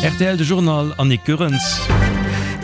Rtl De Journal Annick Goerens.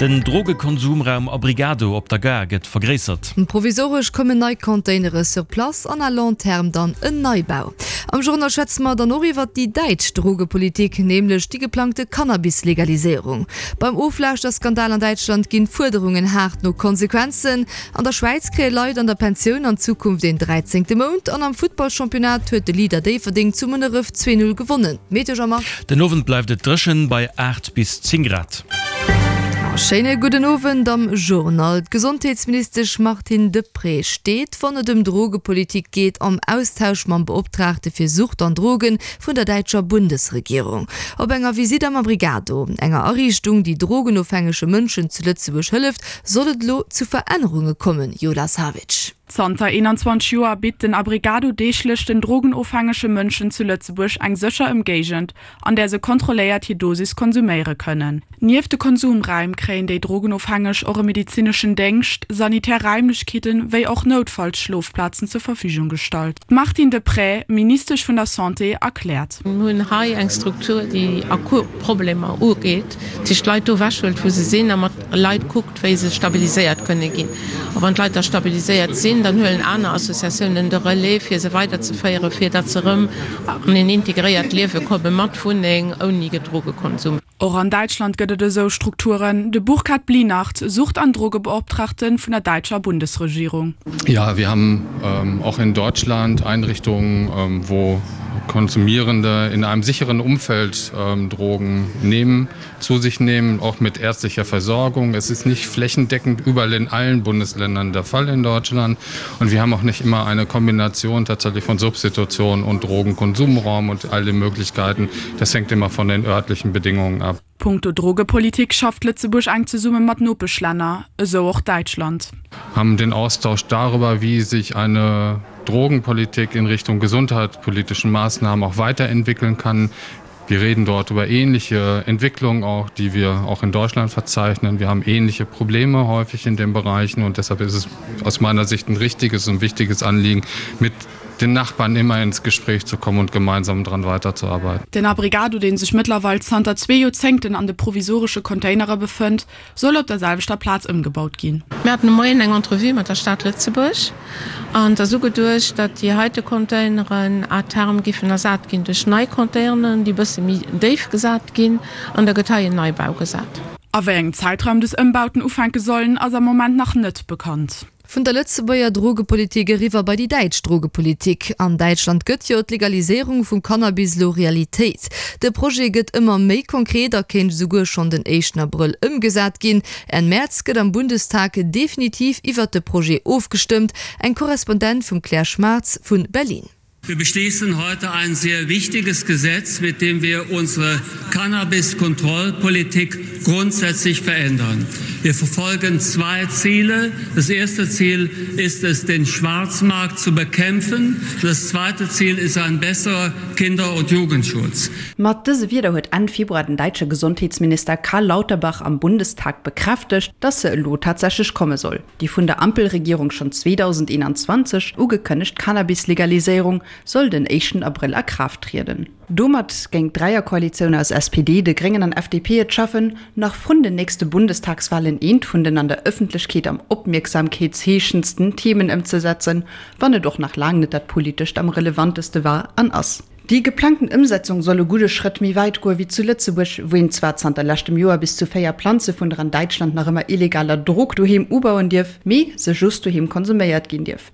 Den Drogekonsumraum Abrigado op der Gare gëtt vergréissert. Provisoresch kommen nei Containere sur place an à long terme dann en Neibau. Am Journal schwätze mer dann och iwwert déi däitsch Drogepolitik, nämlech déi geplangte Cannabis-Legaliséierung. Beim Oflauschterskandal an Däitschland ginn d'Fuerderungen haart no Konsequenzen. An der Schwäiz kréie Leit an der Pensioun an Zukunft een dräizéngte Mount an am Futtballchampionnat huet de Leader Déifferdeng zu Munneref 2, 0 gewonnen. Meteo Jean-Marc. Den Owend bleift et dréchen bei 8 bis 10 Grad. Schéine gudden Owend am Journal. D'Gesondheetsministesch Martine Deprez steet, wann et ëm Drogepolitik geet, am Austausch mam Beoptraagte fir Sucht an Drogen vun der däitscher Bundesregierung. Op enger Visitt am Abrigado, enger Ariichtung, déi drogenofhängege Mënschen zu Lëtzebuerg hëlleft, Soll et elo zu Verännerunge kommen, Yola Savic? Zanter 21 Joer bitt den Abrigado deeglech den drogenofhängege Mënschen zu Lëtzebuerg eng sécher Ëmgéigend, an där se kontrolléiert hir Dosis konsuméiere kënnen. Nieft de Konsumräim kréien déi Drogenofhängeg och e medezineschen Déngscht, sanitär Raimlechkeeten, wéi och Noutfallsschlofplazen zur Verfügung gestallt. D'Martine Deprez, Ministesch vun der Santé, erkläert. Mir hunn hei eng Struktur, déi akut Problemer ugeet, déi d'Leit do ewechhëlt, wou se sinn a mat Leit kuckt, wéi se stabiliséiert kënne ginn. A wann d'Leit da stabiliséiert sinn, dann huelen aner Associatiounen de Relais, fir se weiderzeféieren, fir datt se erëm an een integréiert Liewe komme mat Wunneng, ouni Drogekonsum. Och an Däitschland gëtt et esou Strukturen. De Burkhard Blinardt, Sucht an Drogebeoptraagte vun der däitscher Bundesregierung. Ja, wir haben auch in Deutschland Einrichtungen, wo Konsumierende in einem sicheren Umfeld Drogen nehmen. zu sich nehmen, auch mit ärztlicher Versorgung. Es ist nicht flächendeckend überall in allen Bundesländern der Fall in Deutschland. Und wir haben auch nicht immer eine Kombination tatsächlich von Substitution und Drogenkonsumraum und alle Möglichkeiten. Das hängt immer von den örtlichen Bedingungen ab. Punkto Drogepolitik schafft Lëtzebuerg enk zesumme mat Nopeschlänner, esou och Däitschland. Haben den Austausch darüber, wie sich eine Drogenpolitik in Richtung gesundheitspolitischen Maßnahmen auch weiterentwickeln kann. Wir reden dort über ähnliche Entwicklungen auch, die wir auch in Deutschland verzeichnen. Wir haben ähnliche Probleme häufig in den Bereichen und deshalb ist es aus meiner Sicht ein richtiges und wichtiges Anliegen, mit den Nachbarn immer ins Gespräch zu kommen und gemeinsam daran weiterzuarbeiten. Den Abrigado, dee sech mëttlerweil zanter zwee Joerzéngten an de provisoresche Containere befënnt, soll op der selwechter Plaz ëmgebaut ginn. Mir haten de Moien eng Entrevue mat der Stad Lëtzebuerg an et ass ugeduecht, datt déi heite Containeren à terme giffen ersat ginn duerch nei Containeren, déi e bësse méi déif gesat ginn an da gëtt hei en Neibau gesat. A wéi engem Zäitraum des Ëmbauten ufänke sollen, ass am Moment nach net bekannt. Vun der Lëtzebuerger Drogepolitik eriwwer bei déi däitsch Drogepolitik. An Däitschland gëtt jo d'Legaliséierung vum Cannabis elo Realitéit. De Projet gëtt ëmmer méi konkret a kéint esouguer schonn den éischten Abrëll ëmgesat ginn. Enn Mäerz gëtt am Bundestag definitiv iwwert de Projet ofgestëmmt. Eng Korrespondent vum Claire Schmartz vu Berlin. Wir beschließen heute ein sehr wichtiges Gesetz, mit dem wir unsere Cannabiskontrollpolitik grundsätzlich verändern. Wir verfolgen zwei Ziele. Das erste Ziel ist es, den Schwarzmarkt zu bekämpfen. Das zweite Ziel ist ein besserer Kinder- und Jugendschutz. Mat dëse Wierder huet Enn Februar den däitsche Gesondheetsminister Karl Lauterbach am Bundestag bekräftegt, dass se elo tatsächlech komme soll. Déi vun der Ampelregierung schonn 2021 ugekënnegt Cannabis-Legaliséierung soll den éischten Abrëll a Kraaft trieden. Domat géing d'Dräierkoalitioun aus SPD, de Gréngen an FDP et schaffen, nach vrun den nächste Bundestagswalen eent vun den an der Ëffentlechkeet am opmierksamkeetsheeschendsten Themen ëmzesetzen, wann et och nach laang net dat politescht am relevanteste war an ass. Déi geplangten Ëmsetzung soll e gudde Schrëtt méi wäit goe wéi zu Lëtzebuerg, wou een zwar zanter leschtem Joer bis zu 4 Planze vun der an Däitschland nach ëmmer illegaler Drog doheem ubauen dierf, mee se just doheem konsuméiert ginn dierf.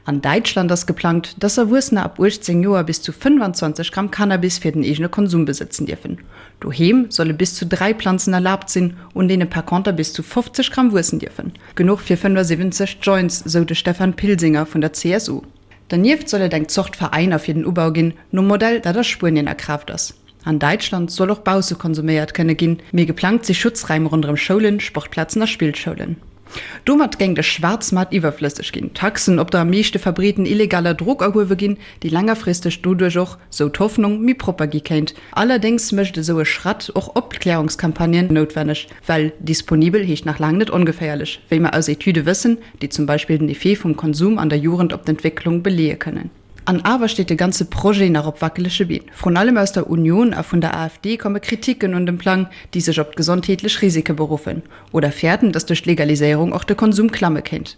An Däitschland ass geplangt, dass Erwuessener ab 18 Joer bis zu 25 Gramm Cannabis fir den eegene Konsum besëtzen dierfen. Doheem solle bis zu 3 Planzen erlaabt sinn, un deene par conter bis zu 50 Gramm wuessen dierfen. Genuch fir 75 Joints, sou de Stefan Pilsinger vun der CSU. Dernieft soll et eng Zort Veräiner fir den Ubau ginn, nom Modell, dat a Spuenien a Kraaft ass. An Däitschland soll och bausse konsuméiert kënne ginn, mee geplangt si Schutzräim ronderëm Schoulen, Sportplazen a Spillschoulen. Domat géing de Schwaarzmaart iwwerflësseg ginn, Taxen op der am meeschte verbreeten illegaler Drog erhuewe ginn, déi längerfristeg doduerch och, sou d'Hoffnung, méi propper gi kéint. Allerdéngs mécht esou e Schratt och Opklärungscampagnen noutwenneg. Well disponibel heescht nach laang net ongeféierlech, wéi mer aus Etüde wëssen, déi zum Beispill den Effet vum Konsum an der Jugend op d'Entwécklung beleeë kënnen. An awer steet de ganze Projet nach op wackelege Been. Vrun allem aus der Union a vun der AfD komme Kriticken un dem Plang, déi sech op d'gesondheetlech Risike beruffen oder fäerten, datt duerch d'Legaliséierung och de Konsum klamme kéint.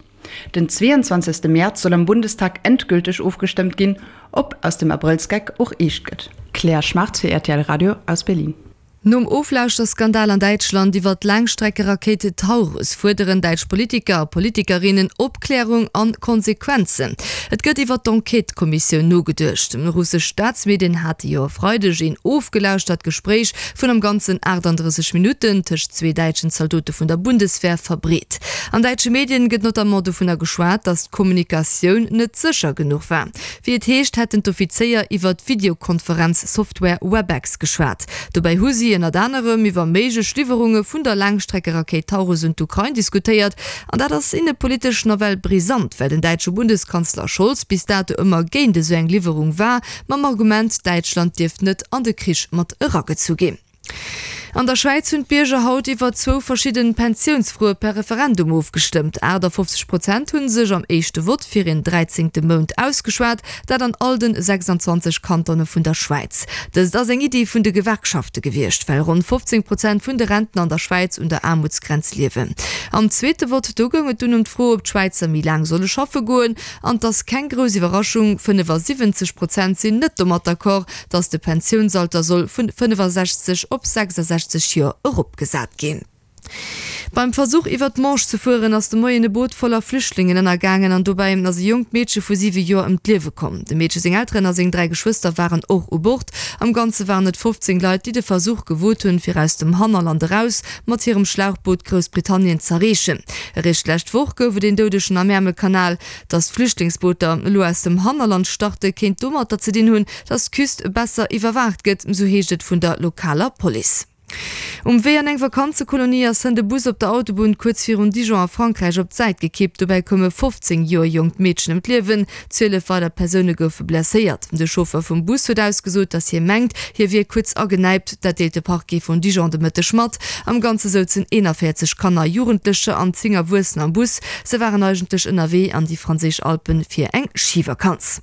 Den 22. Mäerz soll am Bundestag endgülteg ofgestëmmt ginn, ob aus dem Abrëllsgeck och eescht gëtt. Claire Schmartz fir rtl Radio aus Berlin. Nom Oflauschterskandal an Däitschland iwwer d'Laangstreckerakéit Taurus fuerderen däitsch Politiker a Politikerinnen Opklärung an Konsequenzen. Et gëtt iwwer d'Enquête-Kommissioun nogeduecht. Russesch Staatsmedien hate jo e Freideg een ofgelauschtert Gespréich vun am Ganzen 38 Minutten tëscht zwee däitschen Zaldote vun der Bundeswehr verbreet. An däitsche Medien gëtt notamment dovunner geschwat, datt d'Kommunikatioun net sécher genuch war. Wéi et heescht, hätten d'Offizéier iwwer d'Videokonferenz-Software Webex geschwat. Dobäi hu si ënnert anerem iwwer méiglech Liwwerunge vun der Laangstreckerakéit Taurus un d'Ukrain diskutéiert. An dat ass innepolitesch nawell brisant, well den däitsche Bundeskanzler Scholz bis dato ëmmer géint esou eng Liwwerung war, mam Argument, Däitschland dierft net an de Krich mat eragezu ginn. An der Schwäiz hunn d'Bierger haut iwwer zwou verschidden Pensiounsfroe per Referendum ofgestëmmt. 58 Prozent hu sech am éischte Vott fir een dräizéngte Mount ausgeschwat, dat an all den 26 Kantone vun der Schwäiz. Dëst ass eng Iddi vun de Gewerkschafte gewiescht, well ronn 15 Prozent vun de Rentner an der Schwäiz un der Aarmutsgrenz liewen. Am zweete Vott, do goung et dunn ëm d'Fro, ob d'Schwäizer méi laang solle schaffe goen. An 't ass keng grouss Iwwerraschung, 75 Prozent sinn net domat d'accord, dass de Pensiounsalter soll vun 65 op 66 Joer eropgesat ginn. Beim Versuch iwwer d'Manche ze fueren ass de Moien e Boot voller Flüchtlingen ënnergaangen an dobäi ass e jonkt Meedche vu 7 Joer ëm d'Liewe komm. Dem Meedche seng Elteren a seng 3 Geschwëster waren och u Bord. Am Ganze waren et 15 Leit, déi de Versuch gewot hunn, fir aus dem Hannerland eraus mat hirem Schlauchboot Groussbritannien z'erreechen. Eréischt d'lescht Woch gouf et een Doudegen am Äermelkanal. Datt d'Flüchtlingsbooter elo aus dem Hannerland starte kéint domatter ze dinn hunn, datt d'Küst besser iwwerwaacht gëtt, sou heescht et vun der lokaler Police. Um Wee an eng Vakanzekolonie ass hënt e Bus op der Autobunn kuerz virun Dijon a Frankräich op d'Säit gekippt. Dobäi koum e 15 Joer jonkt Meedchen ëm d'Liewen, 12 weider Persoune goufe blesséiert. De Chauffer vum Bus huet ausgesot, datt hie mengt, hie wier kuerz agenäipt. Dat deelt de Parquet vun Dijon de Mëtteg mat. Am Ganze souzen 41 Kanner, Jugendlecher an 10 Erwuessener am Bus. Se waren eigentlech ënnerwee an déi franséisch Alpen fir eng Schivakanz.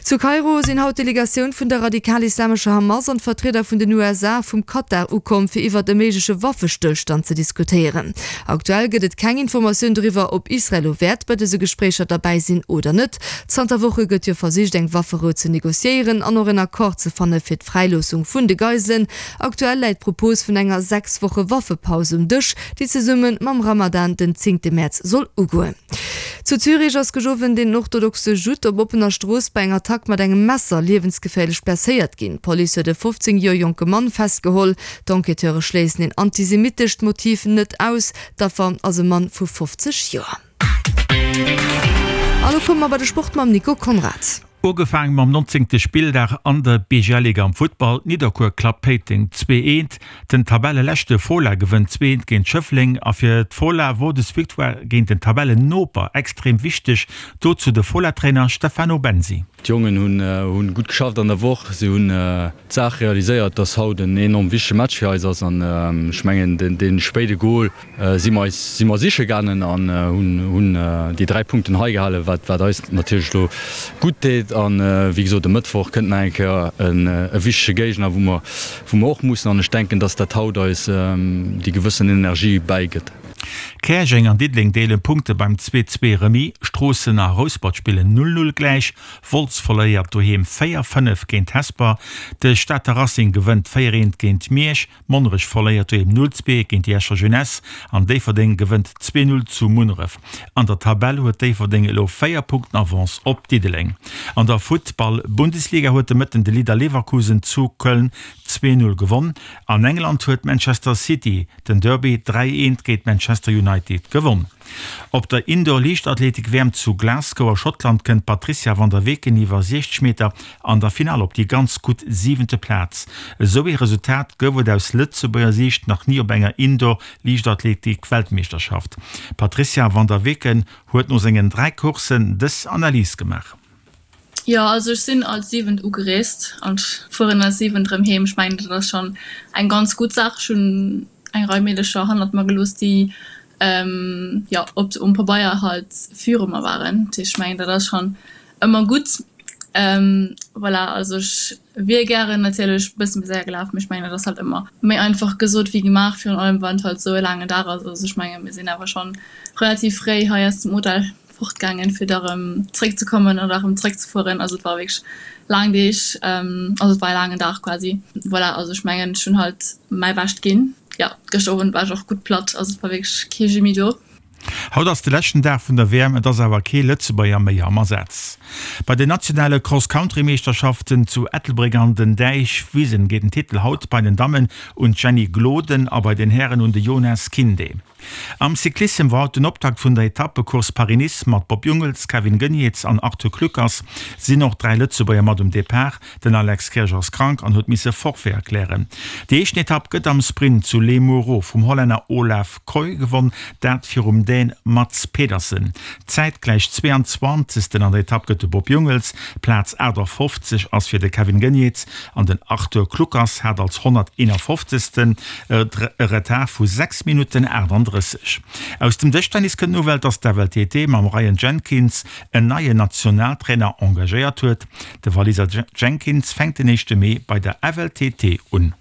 Zu Kairo sinn haut d'Delegatioun vun der radikal-islamescher Hamas an d'Vertrieder vun den USA a vum Katar ukomm, fir iwwert e méigleche Waffestëllstand ze diskutéieren. Aktuell gëtt et keng Informatioun doriwwer, ob Israel elo wäert bei dëse Gespréicher derbäi sinn oder net. Zanter Woche gëtt jo versicht, eng Wafferou ze negociéieren an och en Accord ze fanne fir d'Fräiloossung vun de Geiselen. Aktuell läit d'Propos vun enger 6 Woche Waffepaus um Dësch, déi zesumme mam Ramadan den zéngte Mäerz soll ugoen. Zu Zürich ass gëscht den orthodoxe Judd op oppener Strooss bei enger Attack mat engem Messer liewensgeféierlech blesséiert ginn. D'Police huet e 15 Joer jonke Mann festgeholl. D'Enquêteure schléissen een antisemitescht Motiv net aus. D'Affer ass e Mann vu 50 Joer. A lo komme mer bei de Sport mam Nico Conrad. Ugefaangen mam 19. Spilldag an der BGL-Liga am Futtball, Nidderkuer klappt Péiteng 2, 1, den Tabelleleschte Fola gewënnt 2, 1 géint Schëffleng a fir d'Fola wor des Victoire géint den Tabellennoper extrem wichteg, dozou de Fola-Trainer Stefano Bensi. D'Jongen hunn gutt geschafft an der Woch, si hunn d'Saach realiséiert, dass haut en enorm wichtege Match fir eis ass an ech mengen dee spéide Gol si mer eis si mer siche gaangen an hunn hunn déi 3 Punkten hei gehalen, wat wat eis natierlech elo gutt deet. An wéi gesot e Mëttwoch kënnt nach eng Kéier en e wichtege Géigner, wou mer wou mer och mussen an ech denken, dass dat haut eis déi gewëssen Energie bäigëtt. Käerjeng an Diddeleng deelen Punkte beim 2, 2 Remis, Stroossen a Rouspert spillen 0, 0 gläich, Wolz verléiert doheem 4, 5 géint Hesper, de Stater Racing gewënnt 4, 1 géint Miersch. Monnerech verléiert doheem 0, 2 géint déi Escher Jeunesse an Déifferdeng gewënnt 2, 0 zu Munneref. An der Tabell huet Déifferdeng elo 4 Punkten Avance op Diddeleng. An der Futtball-Bundesliga huet de Mëtten de Leader Leverkusen zu Köln 2, 0 gewonn. An England huet Manchester City den Derby 3, 1 géint Manchester United gewonn. Op der Indoor-Liichtathletik-WM zu Glasgow a Schottland kënnt d'Patrizia van der Weken iwwer 60 Meter an der Finall op déi ganz gutt siwente Plaz. Esou ee Resultat gouf et aus Lëtzebuerger Siicht nach ni op enger Indoor-Liichtathletik-Weltmeeschterschaft. D'Patrizia van der Weken huet no sengen 3 Courssen dës Analys gemaach. Jo, also ech sinn als Siwent ugereest an fueren als Siwent erëm heem. Ech mengen, dat ass schonn eng ganz gutt Saach. Ech hunn eng Rei Meedercher hannert mer gelooss, déi jo op um Pabeier halt viru mer waren. Dat heescht, ech mengen, dat ass schonn ëmmer gutt. Voilà, also ech wier gären natierlech e bësse méi séier gelaf, mee ech mengen dat ass halt ëmmer méi einfach gesot wéi gemaach, virun allem wann et halt esou e laangen Dag ass. Also ech menge mir sinn awer schonn relativ fréi hei aus dem Hotel fortgaangen, fir da rëm zréckzekommen an da rëm zréckzefueren. Also et war wierklech laang Deeg, also et war e laangen Dag quasi. Voilà, also ech mengen ech hunn halt mäi Bescht ginn. Jo, gëschter Owend war ech och gutt platt, also et war wierklech kee Jeu méi do. Haut ass de leschten Dag vun der WM, et ass awer kee Lëtzebuerger méi am Asaz. Bei den nationale Cross-Country-Meeschterschaften zu Ettelbréck an den Däichwisen geet den Titel haut bei den Dammen un d'Jenny Gloden a bei den Hären un de Jonas Kinde. Am Cyclissem war haut den Optakt vun der Etappecourse Paris-Nice mat Bob Jungels, Kevin Geniets an Arthur Kluckers sinn och 3 Lëtzebuerger mat um Depart. Den Alex Kirsch ass krank an huet misse Forfait erklären. Déi éischten Etapp gëtt am Sprint zu Les Mureaux vum Hollänner Olav Kooij gewonn, dat virum Dän Mads Pedersen. Zäitgläich 22. An der Etapp gëtt de Bob Jungels, Plaz 58 ass fir de Kevin Geniets an den Arthur Kluckers hat als 151. E Retard vu 6 Minutten 38. Aus dem Dëschtennis kënnt d'Nouvelle, dass d'FLTT mam Ryan Jenkins en neien Nationaltrainer engagéiert huet. De Waliser Jenkins fänkt den éischte Mee bei der FLTT un.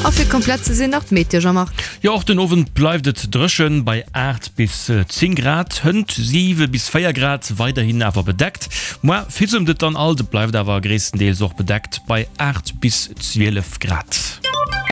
A fir komplett ze sinn nach d'Meteo, Jean-Marc. Jo, och den Owend bleift et dréchen, bei 8 bis 10 Grad, hënt 7 bis 4 Grad, weiderhin awer bedeckt. Moar fissemt et dann alt, et bleift awer gréisstendeels och bedeckt bei 8 bis 12 Grad.